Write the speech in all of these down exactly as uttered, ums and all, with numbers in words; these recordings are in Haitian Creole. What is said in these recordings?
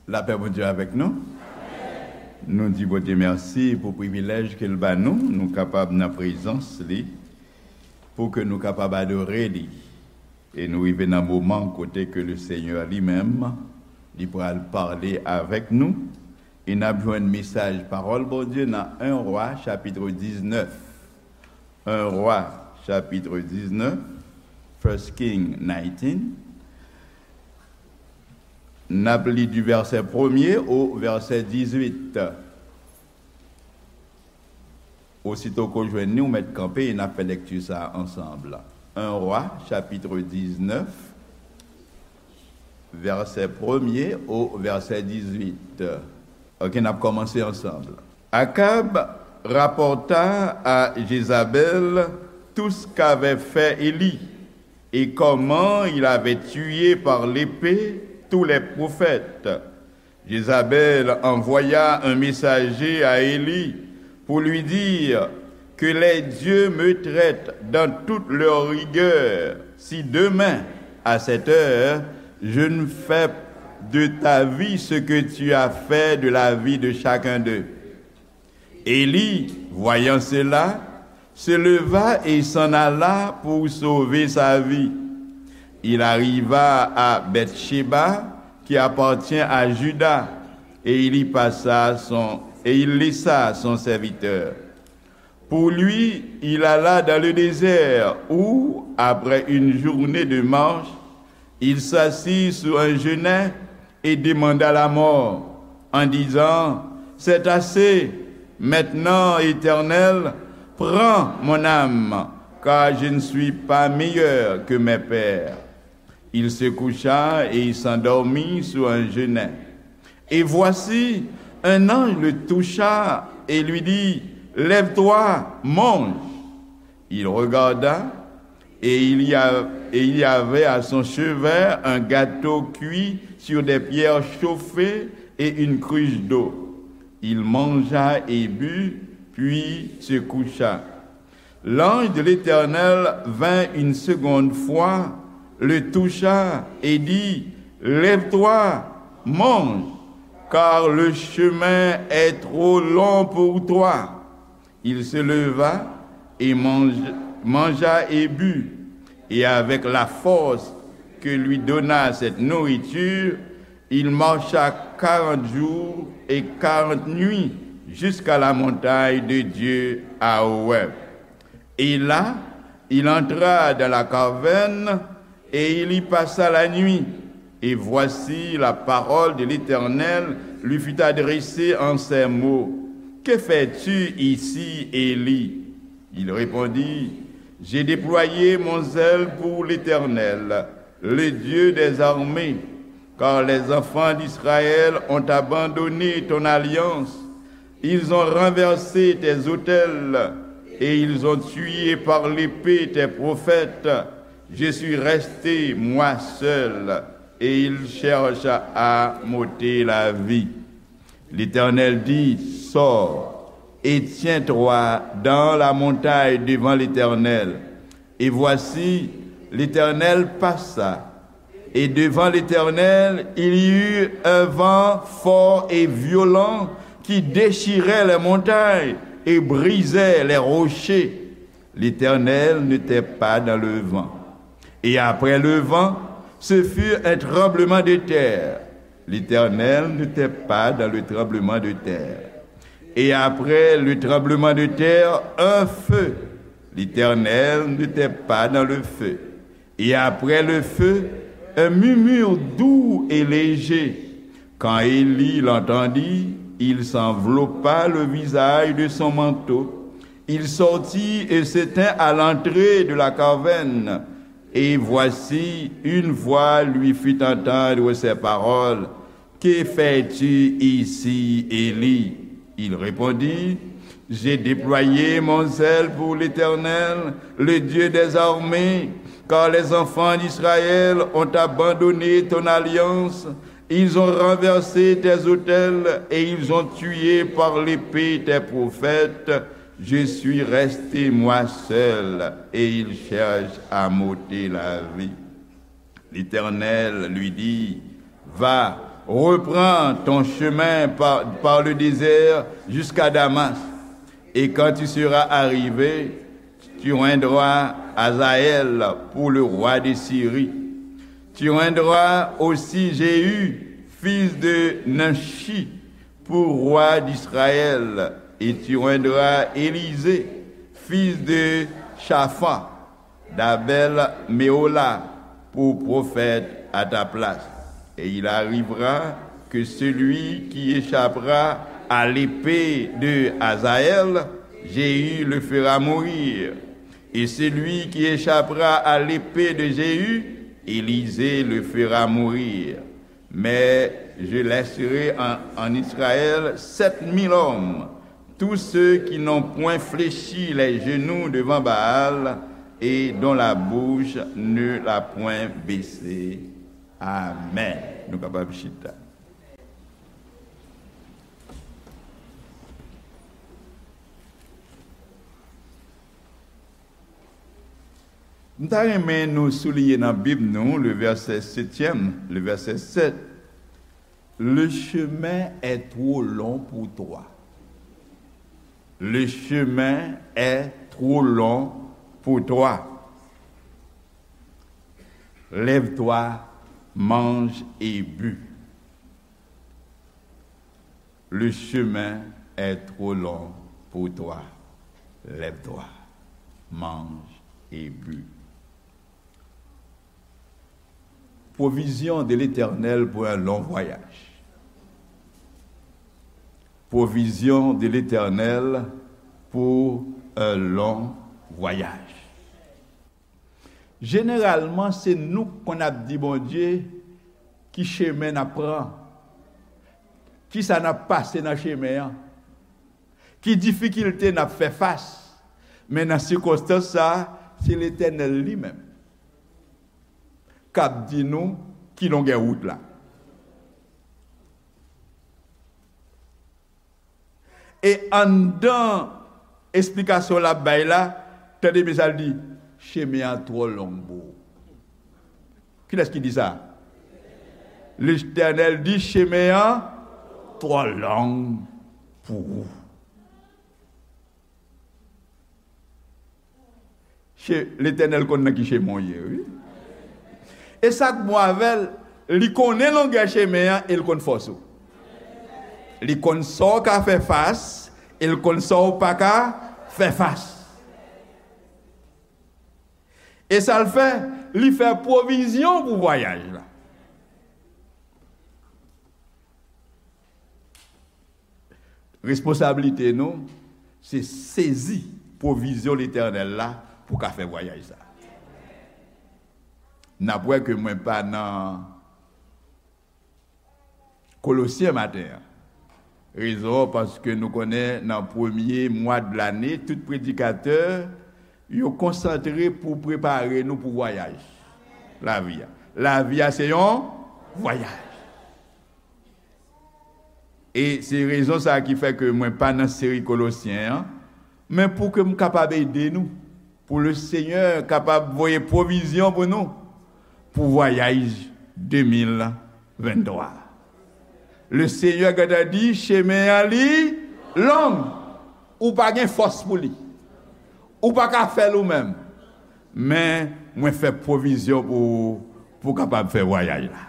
Lapè Bondye avèk nou. Nou di Bondye mèsi pou privilèj ke l ba nou, nou kapab nan prezans li, pou ke nou kapab adore li. E nou rive nan moman kote ke le Senyè li menm, li pral pale avèk nou. E n ap jwenn mesaj pawòl Bondye nan en Rwa, chapit diznèf. En Rwa, chapit diznèf, First King nineteen. N ap li di vèsè premye o vèsè dizuit. Osito ke w jwenn li, ou mèt kanpe e n ap fè lèkti sa a ansanm. En Rwa, chapit diznèf, vèsè premye o vèsè dizuit. Ok, n ap kòmanse ansanm. Akab rapporta à Jézabel tout ce qu'avait fait Élie et comment il avait tué par l'épée tous les prophètes. Jézabel envoya un messager à Élie pour lui dire, que les dieux me traitent dans toute leur rigueur, si demain, à cette heure, je ne fais de ta vie ce que tu as fait de la vie de chacun d'eux. Élie, voyant cela, se leva et s'en alla pour sauver sa vie. Il arriva à Bathsheba, qui appartient à Juda, et il y passa son, et il laissa son serviteur. Pour lui, il alla dans le désert, où, après une journée de marche, il s'assit sous un genêt et demanda la mort, en disant, c'est assez, maintenant, Éternel, prends mon âme, car je ne suis pas meilleur que mes pères. Il se coucha et il s'endormit sous un genêt. Et voici, un ange le toucha et lui dit, lève-toi, mange. Il regarda, et il y a-, et il y avait à son chevet un gâteau cuit sur des pierres chauffées et une cruche d'eau. Il mangea et but, puis se coucha. L'ange de l'Éternel vint une seconde fois, le toucha et dit, lève-toi, mange, car le chemin est trop long pour toi. Il se leva et mange-, mangea et but, et avec la force que lui donna cette nourriture, il marcha quarante jours et quarante nuits jusqu'à la montagne de Dieu à Horeb. Et là, il entra dans la caverne et il y passa la nuit. Et voici, la parole de l'Éternel lui fut adressée en ces mots, que fais-tu ici, Élie ? Il répondit, j'ai déployé mon zèle pour l'Éternel, le Dieu des armées, car les enfants d'Israël ont abandonné ton alliance. Ils ont renversé tes autels et ils ont tué par l'épée tes prophètes. Je suis resté, moi seul, et ils cherchent à m'ôter la vie. L'Éternel dit, sors et tiens-toi dans la montagne devant l'Éternel. Et voici, l'Éternel passa. Et devant l'Éternel, il y eut un vent fort et violent qui déchirait les montagnes et brisait les rochers. L'Éternel n'était pas dans le vent. Et après le vent, ce fut un tremblement de terre. L'Éternel n'était pas dans le tremblement de terre. Et après le tremblement de terre, un feu. L'Éternel n'était pas dans le feu. Et après le feu, un murmure doux et léger. Quand Élie l'entendit, il s'enveloppa le visage de son manteau. Il sortit et se tint à l'entrée de la caverne. Et voici, une voix lui fit entendre ces paroles, que fais-tu ici, Élie ? Il répondit, j'ai déployé mon zèle pour l'Éternel, le Dieu des armées, car les enfants d'Israël ont abandonné ton alliance, ils ont renversé tes autels et ils ont tué par l'épée tes prophètes. Je suis resté moi seul et ils cherchent à m'ôter la vie. L'Éternel lui dit, va, Reprends ton chemin par, par le désert jusqu'à Damas, et quand tu seras arrivé, tu oindras Hazaël pour le roi de Syrie. Tu oindras aussi Jéhu, fils de Nimshi, pour roi d'Israël, et tu oindras Élisée, fils de Shaphan, d'Abel Méhola, pour prophète à ta place. Et il arrivera que celui qui échappera à l'épée de Hazaël, Jéhu le fera mourir. Et celui qui échappera à l'épée de Jéhu, Élisée le fera mourir. Mais je laisserai en, en Israël sept mille hommes, tous ceux qui n'ont point fléchi les genoux devant Baal et dont la bouche ne l'a point baissé. Amèn. Nou kapab chita. M ta renmen nou souliye nan Bib nou, le verset septième, le verset sept. Le chemin est trop long pour toi. Le chemin est trop long pour toi. Lève-toi, mange et bu. Le chemin est trop long pour toi. Lève-toi, mange et bu. Provision de l'Éternel pour un long voyage. Provision de l'Éternel pour un long voyage. Jeneralman, se nou k konn ap di Bondye ki chemen n ap pran, kisa n ap pase nan chemen an, ki difikilte n ap fè fas. Men nan sikonstans sa a, se Letènèl li menm k ap di nou ki longè wout la. E anndan esplikasyon l ap bay la, tande byen sa l di, chemen an twò long pou ou. Kilès ki di sa? Letènèl di, chemen an twò long pou ou. Che-, Letènèl konn nan ki chemen w ye, wi. E sa k bon avè l, li konnen longè chemen an e l konn fòs ou. Li konn sa w ka fè fas e l konn sa w pa ka fè fas. E sa l fè, li fè pwovizyon pou vwayaj la. Responsablite nou, se sezi pwovizyon Letènèl la pou ka fè vwayaj sa. N ap wè ke mwen pa nan Kolosyen maten an. Rezon an, paske nou konnen nan premye mwa de lane, tout predikatè, yo konsantre pou prepare nou pou vwayaj lavi a. Lavi a se yon vwayaj. E se rezon sa a ki fè ke mwen pa nan seri Kolosyen an, men pou ke m kapab ede nou, pou Lesenyè kapab voye pwovizyon pou nou, pou vwayaj de mil venntwa. Lesenyè gentan di, chemen an li long, ou pa gen fòs pou li, ou pa ka fè l ou menm, men mwen fè pwovizyon pou ou, pou w kapab fè vwayaj la.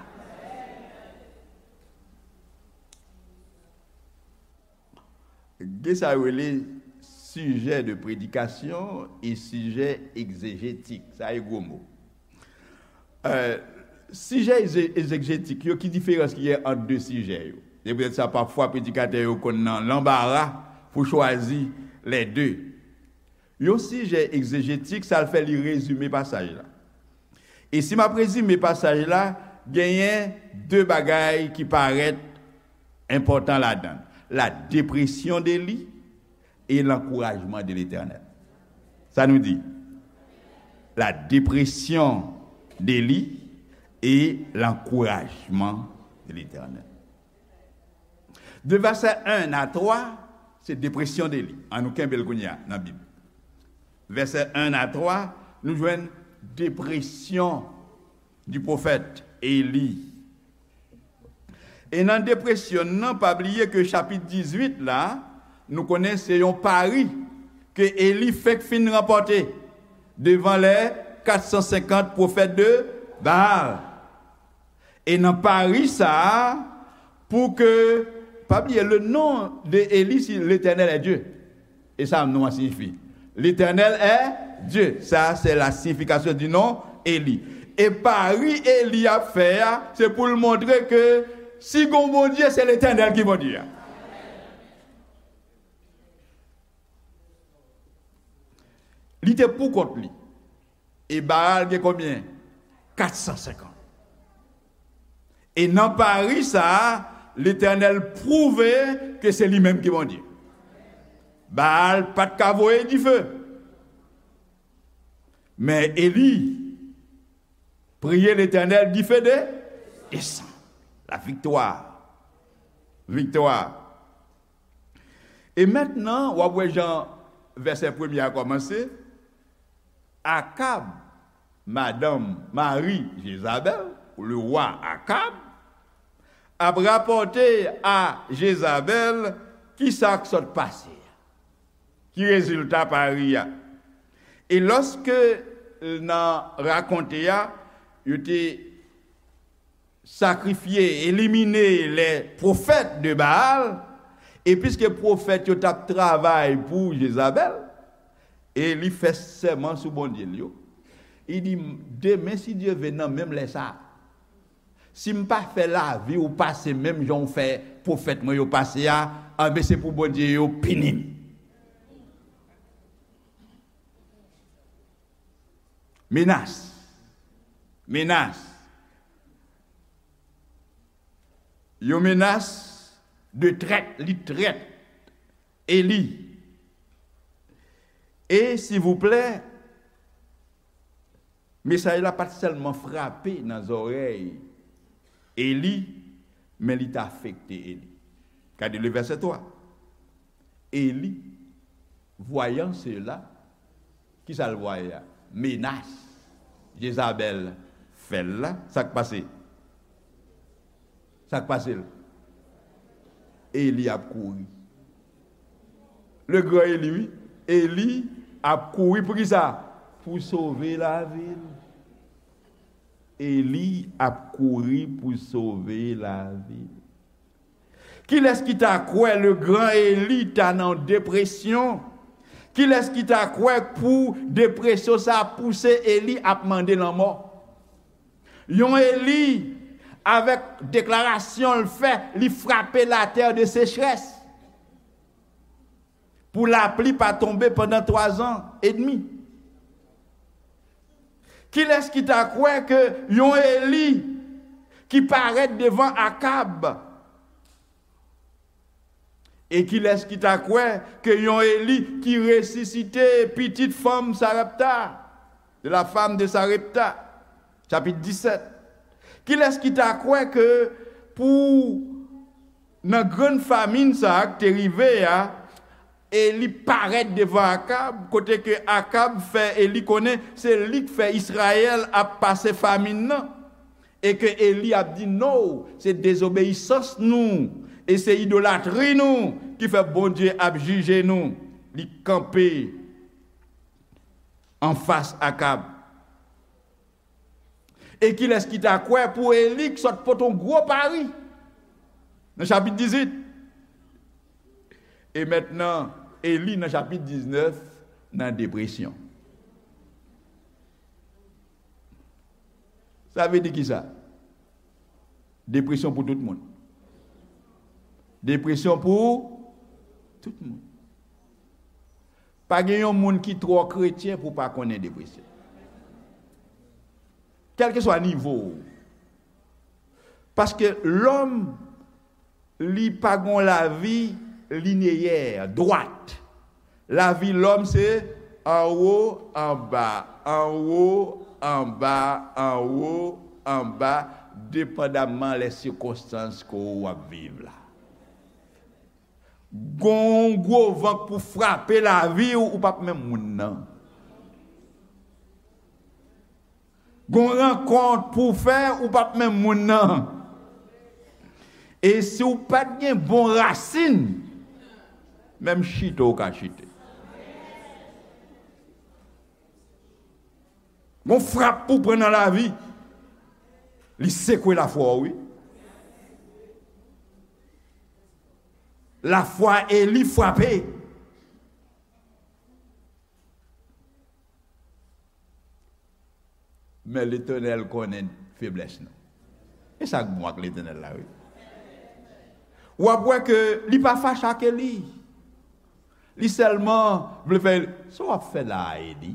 Gen sa yo rele sijè de predikasyon e sijè egzejetik. Sa e gwo mo. Euh, sijè egze-, egzejetik yo, ki diferans ki gen ant de sijè yo? Se poutèt sa, pafwa, predikatè yo konn nan lanbara pou chwazi lè de. Yon sijè egzejetik, sa l fè li rezime pasaj la. E si m ap rezime pasaj la, genyen de bagay ki parèt enpòtan ladan l. La dépression d'Élie et l'encouragement de l'Éternel. Sa nou di? La dépression d'Élie et l'encouragement de l'Éternel. De vèsè en a twa, se depresyon de li. An nou kenbe l kounye a nan Bib. Vèsè en a twa, nou jwenn depresyon di pwofèt Eli. E nan depresyon nan, pa bliye ke chapit dizuit la, nou konnen se yon pari ke Eli fenk fin ranpòte devan lè kat san senkant pwofèt de Baal. E nan pari sa a, pou ke, pa bliye, le nom de Eli, c'est l'Éternel est Dieu. E sa non an siyifi. L'Éternel est Dieu. Sa, se la siyifikasyon di non Eli. E pari Eli ap fè a, se pou l montre ke si gon Bondye, se Letènèl ki Bondye a. Li te pou kont li. E Baal gen konbyen? Kat san senkant. E nan pari sa a, Letènèl pwouve ke se li menm ki Bondye. Baal pa t ka voye dife. Men Eli priye Letènèl, dife de, desann. La viktwa. Viktwa. E mentnan, w ap wè jan vèsè premye a kòmanse. Akab, madanm, mari Jezabèl, le wa Akab, ap rapòte a Jezabèl kisa k sot pase a, ki rezilta pari a. E lòske nan rakonte a, yo te sakrifye, elimine lè pwofèt de Baal, e piske pwofèt yo t ap travay pou Jezabèl, e li fè sèman sou Bondye l yo, li di, demen, si Dye ve, nan menm lè sa a, si m pa fè lavi w pase menm jan w fè pwofèt mwen yo pase a, anben, se pou Bondye yo pini m. Menas. Menas. Yon menas de trèt, li trèt. Eli. E, silvouplè, mesaj la pa t sèlman frape nan zòrèy Eli, men li t afekte Eli. Gade le vèsè twa. Eli, voyant cela, kisa l vwaye a? Menas Jezabèl fè l la, sa k pase? Sa k pase l? Eli ap kouri. Le gran Eli, wi. Eli ap kouri pou kisa? Pou sove lavi l. Eli ap kouri pou sove lavi l. Kilès ki ta kwè le gran Eli ta nan depresyon? Kilès ki ta kwè pou depresyon sa a pouse Eli ap mande lanmò? Yon Eli, avèk deklarasyon l fè, li frape latè de sechrès. Pou lapli pa tonbe pandan twa zan edmi. Kilès ki ta kwè ke yon Eli ki parèt devan Akab? E kilès ki ta kwè ke yon Eli ki resisite pitit fanm Sarepta, de la femme de Sarepta? Chapit disèt. Kilès ki ta kwè ke pou nan grann famin sa a k te rive a, Eli parèt devan Akab, kote ke Akab fè Eli konnen se li k fè Izrayèl ap pase famin nan, e ke Eli ap di, "No, se dezobeyisans nou, e se idolatri nou ki fè Bondye ap jije nou." Li kanpe anfas Akab. E kilès ki ta kwè pou Eli k sot pote yon gwo pari? Nan chapit dizuit. E mentnan, Eli nan chapit diznèf, nan depresyon. Sa vle di kisa? Depresyon pou tout moun. Depresyon pou tout moun. Pa gen yon moun ki twò kretyen pou pa konnen depresyon. Kèlkeswa nivo w. Paske lòm, li pa gon lavi lineyè, dwat. Lavi lòm se anwo, anba, anwo, anba, anwo, anba, depandamman lè sikonstans ke w ap viv la. Gon gwo van k pou frape lavi w, ou p ap menm moun nan. Gon rankont pou w fè, ou p ap menm moun nan. E si w pa t gen bon rasin, menm chite w ka chite. Gon frap pou pran nan lavi, li sekwe lafwa w, wi. Lafwa Eli frape. Men Letènèl konnen feblès nou. E sa k bon ak Letènèl la, wi. W ap wè ke li pa fache ak Eli. Li sèlman vle fè, sa w ap fè la a, Eli?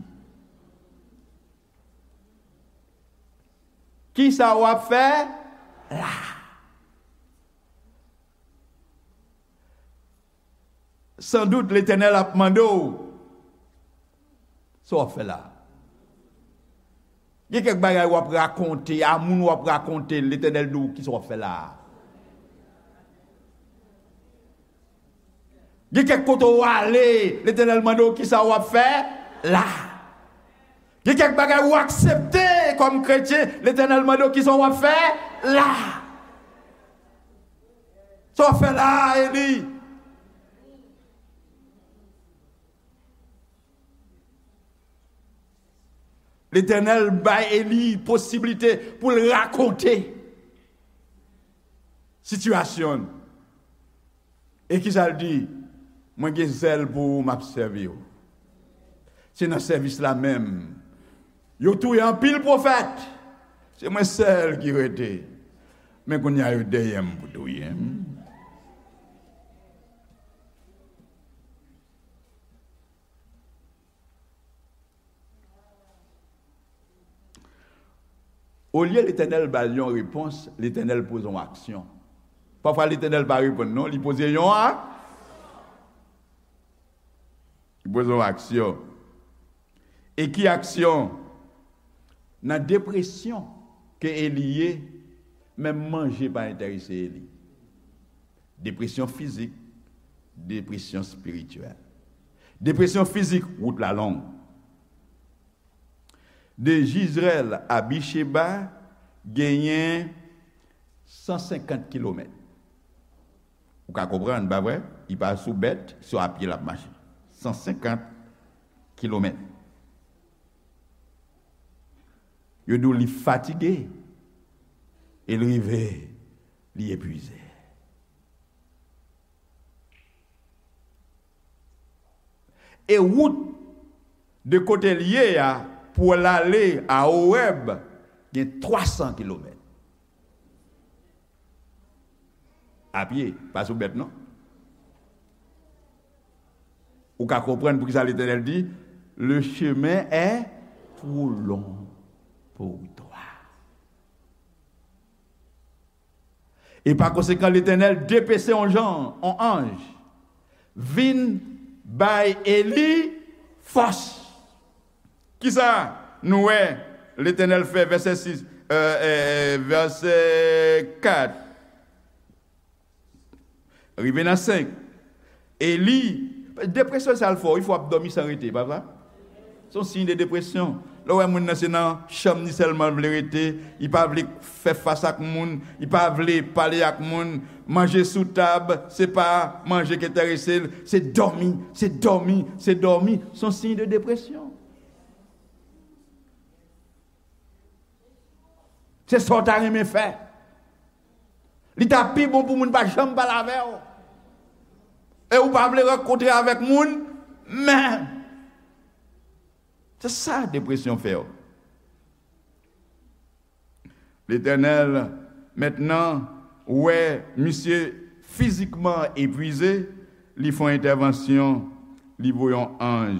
Kisa w ap fè la? Sandout, Letènèl ap mande w, sa w ap fè la? Gen kèk bagay w ap rakonte, a moun w ap rakonte, Letènèl di w, kisa w ap fè la? Gen kèk kote w ale, Letènèl mande w, kisa w ap fè la? Gen kèk bagay ou aksepte kòm kretyen, Letènèl mande w, kisa w ap fè la? Sa w ap fè la, Eli? Letènèl bay Eli posiblite pou l rakonte sitiyasyon l. E kisa l di? Mwen gen zèl pou ou, m ap sèvi w. Se nan sèvis la menm. Yo touye anpil pwofèt. Se mwen sèl ki rete. Men kounye a yo dèyè m pou touye m. Olye Letènèl ba l yon repons, Letènèl poze yon aksyon. Pafwa Letènèl pa reponn non, li poze yon a-, li poze yon aksyon. E ki aksyon? Nan depresyon ke Eli ye, menm manje pa enterese Eli. Depresyon fizik, depresyon espirityèl. Depresyon fizik, wout la long. De Jizrèl a Bicheba genyen san senkant kilomèt. Ou ka konprann, pa vre? Li pa sou bèt, se a pye l ap mache. San senkant kilomèt. Yo di w li fatige, e l rive, li epwize. E wout de kote l ye a pou l ale a Owèb gen twa san kilomèt. A pye, pa sou bèt non. Ou ka konprann poukisa Letènèl di, le chemin est trop long pour toi. E pa konsekan, Letènèl depese yon jan, yon anj, vin bay Eli fòs. Kisa nou wè Letènèl fè, vèsè sis, euh, euh, euh, vèsè kat? Rive nan senk. Eli, depresyon sa l fè w, wi, fò w ap dòmi san rete, pa vre? Se yon siy de depresyon. Lè w wè moun nan se nan chanm li sèlman l vle rete, li pa vle fè fas ak moun, li pa vle pale ak moun, manje sou tab, se pa manje ki enterese l, se dòmi, se dòmi, se dòmi. Se yon siy de depresyon. Se sa w ta renmen fè. Li ta pi bon pou moun pa janm pale avè w. E ou pa vle rankontre avèk moun, men se sa depresyon fè w. Letènèl mentnan wè misye fizikman epwize, li fè yon entèvansyon, li voye yon anj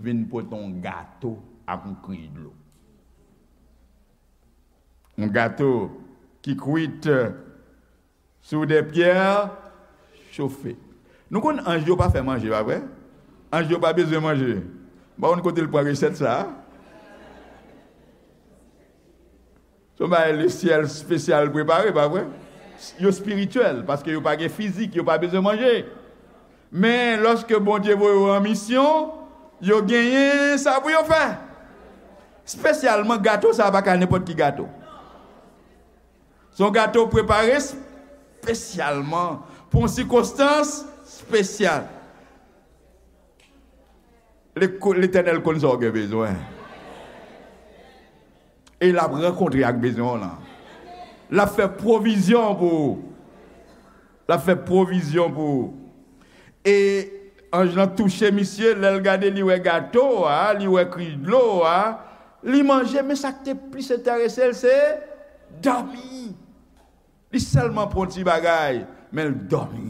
vin pote yon gato ak yon kriy dlo. Yon gato ki kwit sou de pyè chofe. Nou konn anj yo pa fè manje, pa vre? Anj yo pa bezwen manje. M pa konn kote l pran resèt sa a. Se yon bagay lesyèl espesyal prepare, pa vre? Yo espirityèl, paske yo pa gen fizik, yo pa bezwen manje. Men, lòske Bondye voye yo an misyon, yo genyen sa pou yo fè. Espesyalman, gato sa a pa ka nenpòt ki gato. Se yon gato prepare es-, espesyalman pou yon sikonstans espesyal. Leko-, Letènèl konn sa w gen bezwen. E l ap rankontre ak bezwen w lan. L ap fè pwovizyon pou ou. L ap fè pwovizyon pou ou. E anj lan touche misye, lè l gade, li wè gato a, li wè krich dlo a, li manje, men sa k te plis enterese l, se dòmi. Li sèlman pran yon ti bagay, men l dòmi.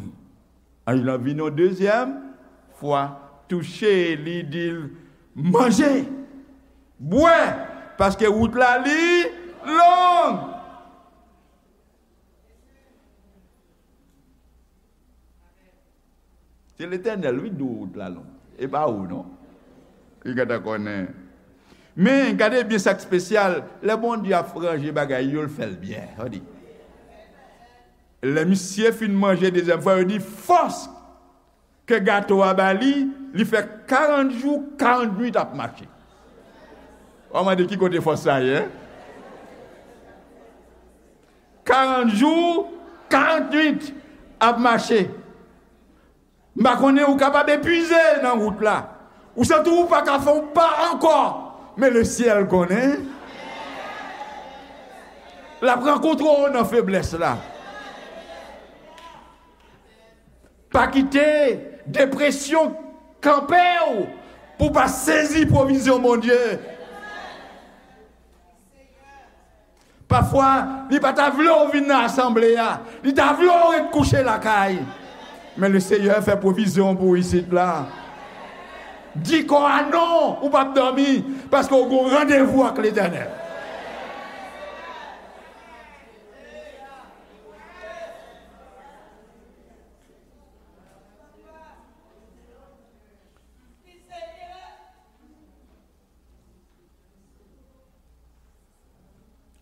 Anj lan vin yon dezyèm fwa, touche li, di l, "Manje, bwè, paske wout la li long." Se Letènèl, wi, di w wout la long. E pa ou, non. Li gentan konnen. Men, gade byen sa k espesyal. Lè Bondye ap ranje bagay yo, l fè l byen. Tande. Lè misye fin manje dezyèm fwa, yo di fòs ke gato a ba li, li fè karant jou, karant nuit ap mache. W a mande ki kote fòs sa ye, en? Karant jou, karant nuit ap mache. M pa konnen, ou kapab epuize nan wout la. Ou santi w pa ka fè yon pa ankò. Men lesyèl konnen. L ap rankontre w nan feblès la. Pa kite depresyon kanpe w pou w pa sezi pwovizyon Bondye. Pafwa, li pa ta vle w vin nan asanble a. Li ta vle w ret kouche lakay. Men Lesenyè fè pwovizyon pou w isit la. Di kò a non, ou p ap dòmi, paske w gen yon randevou ak Letènèl.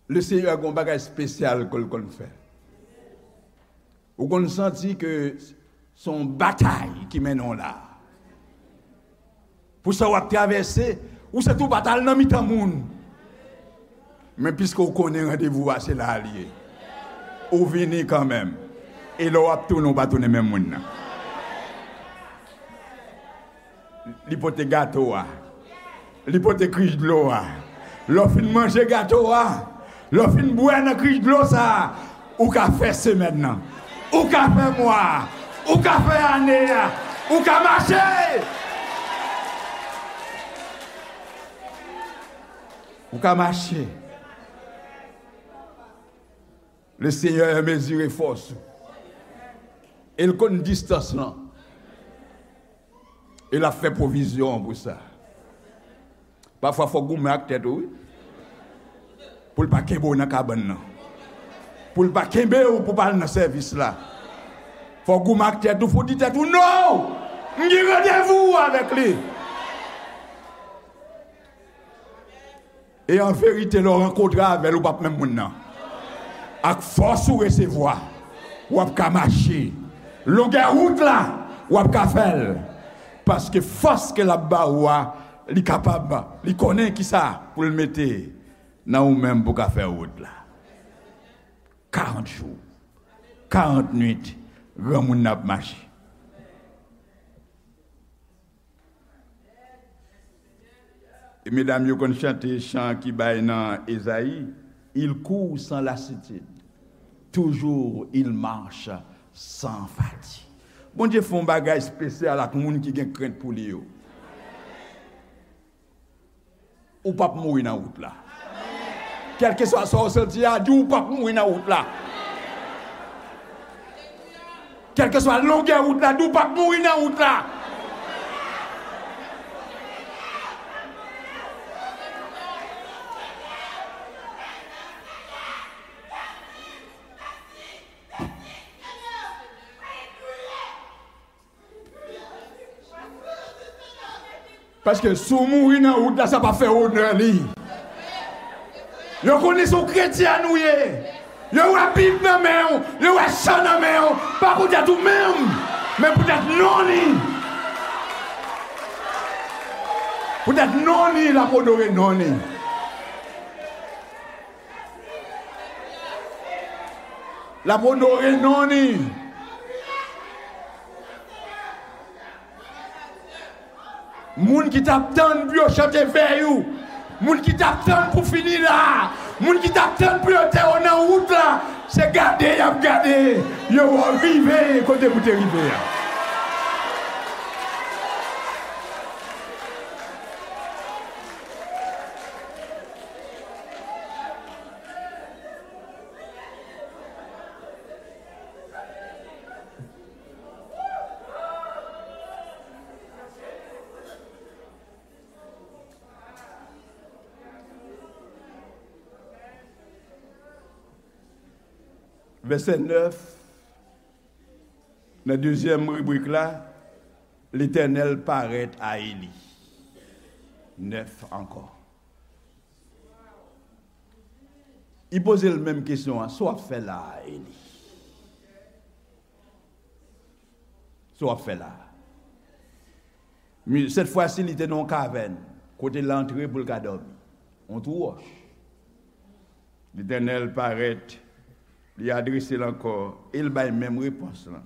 Lesenyè gen yon bagay espesyal ke l konn fè. Ou konn santi ke se yon batay ki mennen w la. Pou sa w ap travèse, ou santi w pa t al nan mitan moun. Men piske w konnen randevou a se la l ye, ou vini kanmenm. E lè w ap tounen, w pa tounen menm moun nan. Li pote gato a. Li pote krich dlo a. Lè w fin manje gato a, lè w fin bwè nan krich dlo sa a, ou ka fè semèn nan. Ou ka fè mwa a. Ou ka fè ane a. Ou ka mache. Ou ka mache. Lesenyè mezire fòs ou. E l konn distans lan. E l ap fè pwovizyon pou sa. Pafwa, fò w goumen ak tèt ou, wi. Pou l pa kenbe w nan kabann nan. Pou l pa kenbe w pou w pa al nan sèvis la. Fò w goumen ak tèt ou, fò w di tèt ou, "Non! M gen randevou avèk li." E an verite, lè w rankontre avè l, ou p ap menm moun nan. Ak fòs ou resevwa, w ap ka mache. Longè wout la, w ap ka fè l. Paske fòs ke l ap ba ou a, li kapab, li konnen kisa pou l mete nan ou menm pou w ka fè wout la. Karant jou, karant nuit, granmoun nan ap mache. E medam yo konn chante chan ki bay nan Ezayi, "Il court sans lassitude, toujours il marche sans fatigue." Bondye fè yon bagay espesyal ak moun ki gen krent pou li yo. Ou p ap mouri nan wout la. Kèlkeswa sa w santi a, di w p ap mouri nan wout la. Kèlkeswa longè wout la, di w p ap mouri nan wout la. Paske si w mouri nan wout la, sa p ap fè onè li. Yo konnen se yon kretyen ou ye. Yo wè Bib nan men w, yo wè chan nan men w, pa poutèt ou menm, men poutèt non li. Poutèt non li, l ap onore non li. L ap onore non li. Moun ki t ap tann pou yo chante vèy ou, moun ki t ap tann pou fini la, moun ki t ap tann pou yo te w nan wout la, se gade y ap gade, yo wè w rive kote pou te rive a. Vèsè nèf, nan dezyèm ribrik la, Letènèl parèt a Eli. Nèf ankò. Li poze l menm kesyon an, sa w ap fè la a, Eli? Sa w ap fè la a? Mi-, sèt fwa si, li te nan yon kavèn, kote l antre pou l ka dòmi. Yon twou wòch. Letènèl parèt, li adrese l ankò, e l bay menm repons lan.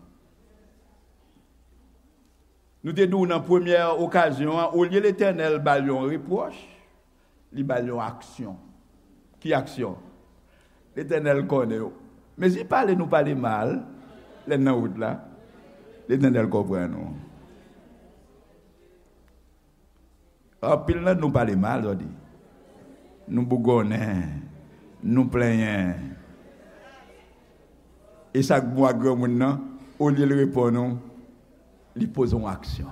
Nou te di w nan premyè okazyon an, olye Letènèl ba l yon repwòch, li ba l yon aksyon. Ki aksyon? Letènèl konnen w. Mezi pale nou pale mal, lè n nan wout la, Letènèl konprann nou. Anpil nan nou pale mal, zòdi. Nou bougonnen, nou plenyen. E sa k bon ak granmoun nan, olye l reponn ou, li poze yon aksyon.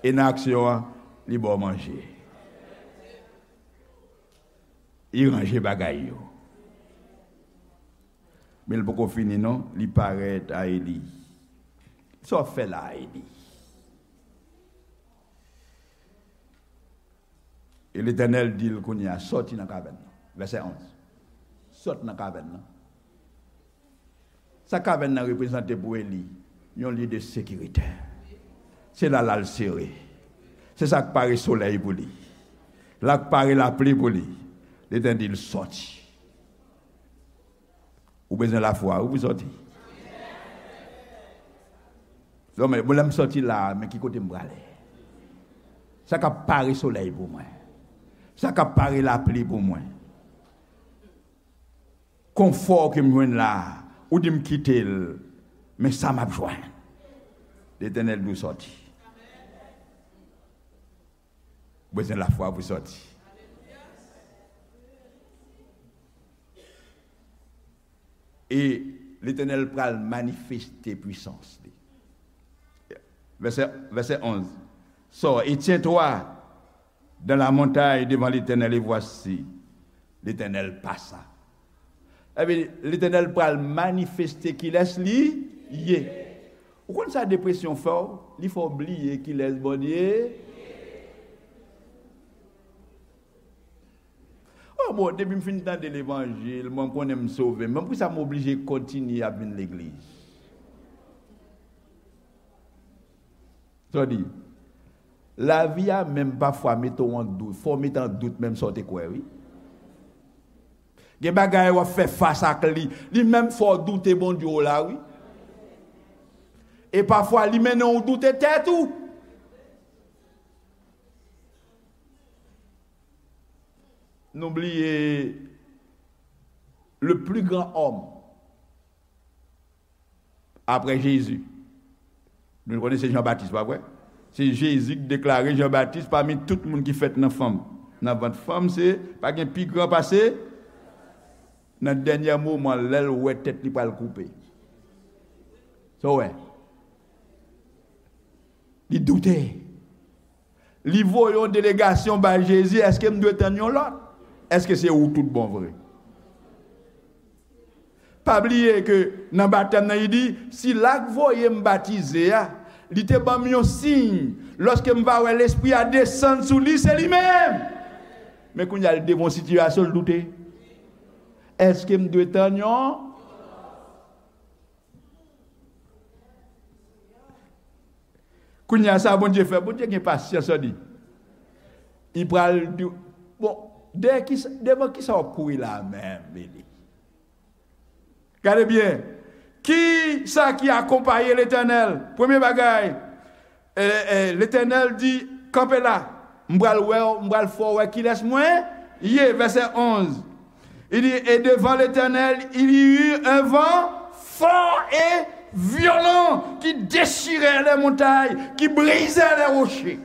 E nan aksyon an, li ba w manje. Li ranje bagay yo. Men l poko fini non, li parèt a Eli. Sa w ap fè la a, Eli? E Letènèl di l kounye a, sòti nan kavèn nan. Vèsè onz. Sòt nan kavèn nan. Sa kavèn nan reprezante pou Eli? Yon lye de sekirite. Se la l al sere. Se sa k pare solèy pou li. La k pare lapli pou li. Letènèl di l sòti. Ou bezwen lafwa wi pou sòti. Bon, men, bon, lè m sòti la a, men ki kote m prale? Sa k ap pare solèy pou mwen? Sa k ap pare lapli pou mwen? Konfò ke m jwenn la a, ou di m kite l, men sa m ap jwenn? Letènèl di w sòti. Ou bezwen lafwa pou sòti. E Letènèl pral manifeste pwisans li. Vèsè, vèsè onz. Sors et tiens-toi dans la montagne devant l'Éternel, et voici, l'Éternel passa. Epi, Letènèl pral manifeste kilès li ye. Ou konn sa depresyon fè w? Li fè w bliye kilès Bondye ye. Oh, bon, depi m fin tande levanjil, mwen, m konnen m sove. Men poukisa m oblije kontinye ap vin legliz? Sa w di? Lavi a menm pafwa mete w an dout. Fò w mete an dout menm sa w te kwè, wi. Gen bagay w ap fè fas ak li. Li menm fè w doute Bondye w la, wi. E pafwa, li mennen w doute tèt ou. Nou bliye le plus grand homme apre Jezi. Nou konnen se Jan Batis, pa vre? Se Jezi ki deklare Jan Batis pami tout moun ki fèt nan fanm. Nan vant fanm, se pa gen pi gran pase. Nan dènye moman, lè l wè tèt li pral koupe. Sa w wè? Li doute. Li voye yon delegasyon bay Jezi, èske m dwe tann yon lòt? Èske se ou tout bon vre? Pa bliye ke nan batèm nan, li di, sila k voye m batize a, li te ban m yon siy. Lòske m va wè Lespri a desann sou li, se li menm. Men kounye a, li devan yon sitiyasyon, l doute. Èske m dwe tann yon? Kounye a sa Bondye fè, Bondye gen pasyans, li. Li pral di, bon, dèyè kisa, devan kisa w ap kouri la a menm, Eli? Gade byen. Ki sa ki akonpaye Letènèl? Premye bagay, e, e, Letènèl di, kanpe la. M pral wè w, m pral fè w wè kilès mwen ye. Vèsè onz. Il dit, et devant l'Éternel, il y eut un vent fort et violent qui déchirait les montagnes, qui brisait les rochers.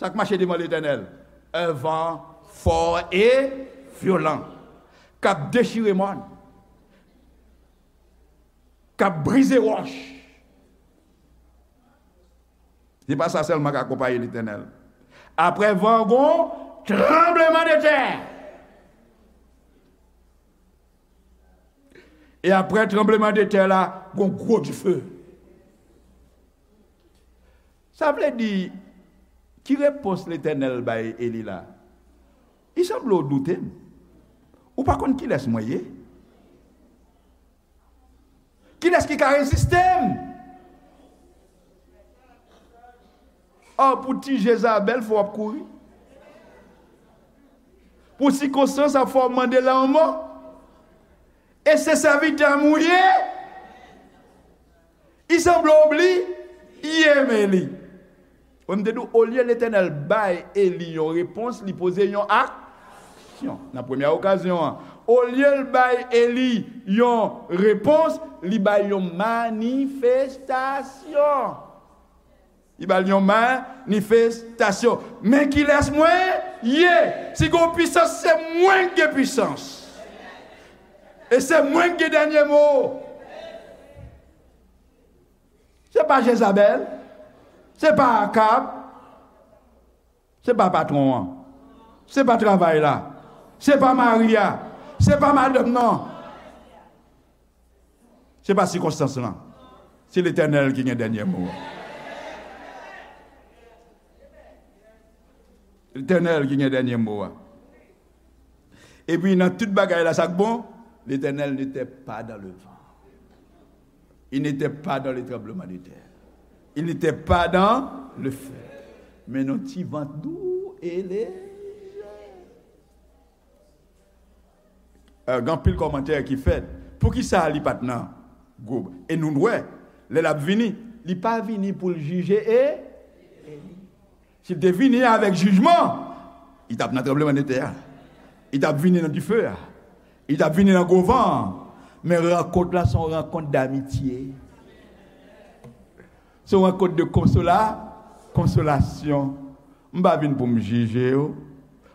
Sa k mache devan Letènèl? Un vent fort et violent, k ap dechire mòn, k ap brize wòch. Se pa sa sèlman k akonpaye Letènèl. Apre van, gon tranblemanntè. E apre tranblemanntè la, gon gwo dife. Sa vle di, ki repons Letènèl bay Eli la? Li sanble w doute m. Ou pa konn kilès mwen ye? Kilès ki ka reziste m? Ò, pou ti Jezabèl, fò w ap kouri. Pou sikonstans ap fè w mande lanmò. E se sèvitè m ou ye? Li sanble w bliye m, Eli. Wè, m te di w, olye Letènèl bay Eli yon repons, li poze yon aksyon. Nan premyè okazyon an, olye l bay Eli yon repons, li bay yon manifestasyon. Li ba l yon manifestasyon. Men kilès mwen ye? Si gon pisans, se mwen k gen pisans. E se mwen k gen dènye mo. Se pa Jezabèl. Se pa Akab. Se pa patwon an. Se pa travay la. Se pa mari a. Se pa madanm nan. Se pa sikonstans lan. Se Letènèl ki gen dènye mo a. Letènèl ki gen dènye mo a. Epi nan tout bagay la, sa k bon, Letènèl n'était pas dans le vent. Il n'était pas dans le tremblement de terre. Il n'était pas dans le feu. Men nan ti van dou e lejè. Eh, gen anpil kòmantè ki fèt. Poukisa li pa t nan gwo? E nou wè, lè l ap vini, li pa vini pou l jije e, e li. Si l te vini avèk jijman, li t ap nan tranblemanntè a. Li t ap vini nan dife a. Li t ap vini nan gwo van an. Men rankont la se yon rankont damitye. Se yon rankont de konsola, konsolasyon. M pa vin pou m jije w.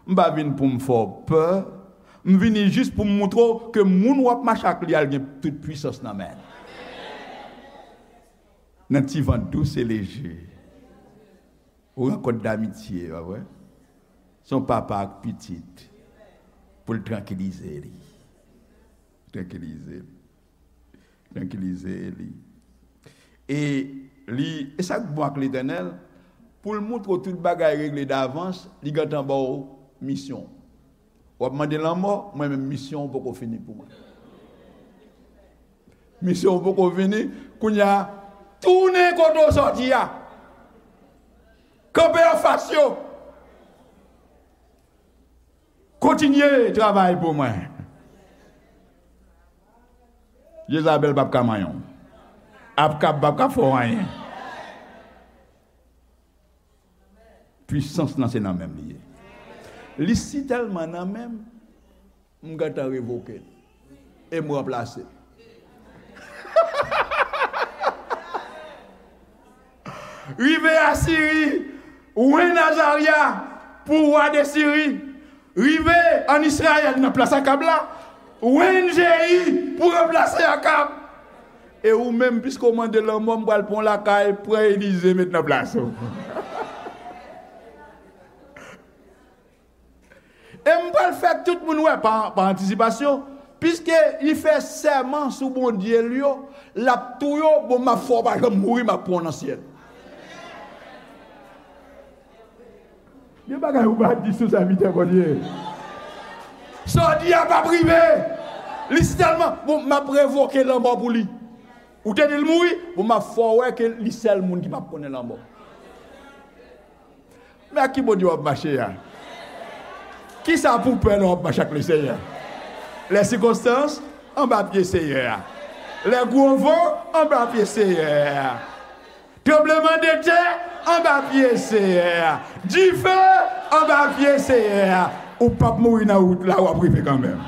M pa vin pou m fè w pè. M vini jis pou m moutre w ke moun w ap mache ak li a, l gen tout pwisans nan men l. Nan ti van dous e leje. Ou rankont damitye, pa vre? Se yon papa ak pitit. Pou l trankilize li. Trankilize li. Trankilize li. E li, e sa k bon ak Letènèl, pou l moutre w tout bagay regle davans, li gentan ba w misyon. W ap mande lanmò, mwen menm misyon w poko fini pou mwen. Misyon w poko fini, kounye a, tounen kote w sòti a. Kanpe anfas yo. Kontinye travay pou mwen. Jezabèl p ap ka manyen w. Akab p ap ka fè w anyen. Pwisans lan se nan men m li ye. Li si tèlman nan men m, m gentan revoke l. E m ranplase l. Rive Asiri, wen Azarya pou wa de Siri. Rive ann Izrayèl nan plas Akab la, wen Jeyi pou ranplase Akab. E ou menm, piske w mande lanmò, m pral pran w lakay, pran Elize met nan plas ou. E m pral fè tout moun wè pa, pa antisipasyon, piske li fè sèman sou Bondye l yo, l ap touye w, bon, m ap fè w pa janm mouri, m ap pran w nan syèl. Gen bagay ou pa di sou sèvitè Bondye. Sa w di a p ap rive. Li si tèlman, bon, m ap revoke lanmò pou li. Ou te di l mouri, bon, m ap fè w wè ke li sèl moun ki p ap konnen lanmò. Men ak ki Bondye w ap mache a? Kisa pou w pè lè w ap mache ak Lesenyè? Les circonstances anba pye Seyè a. Les gros vents anba pye Seyè a. Tranbleman de tè anba pye Seyè a. Dife anba pye Seyè a. Ou p ap mouri nan wout la, w ap rive kanmenm.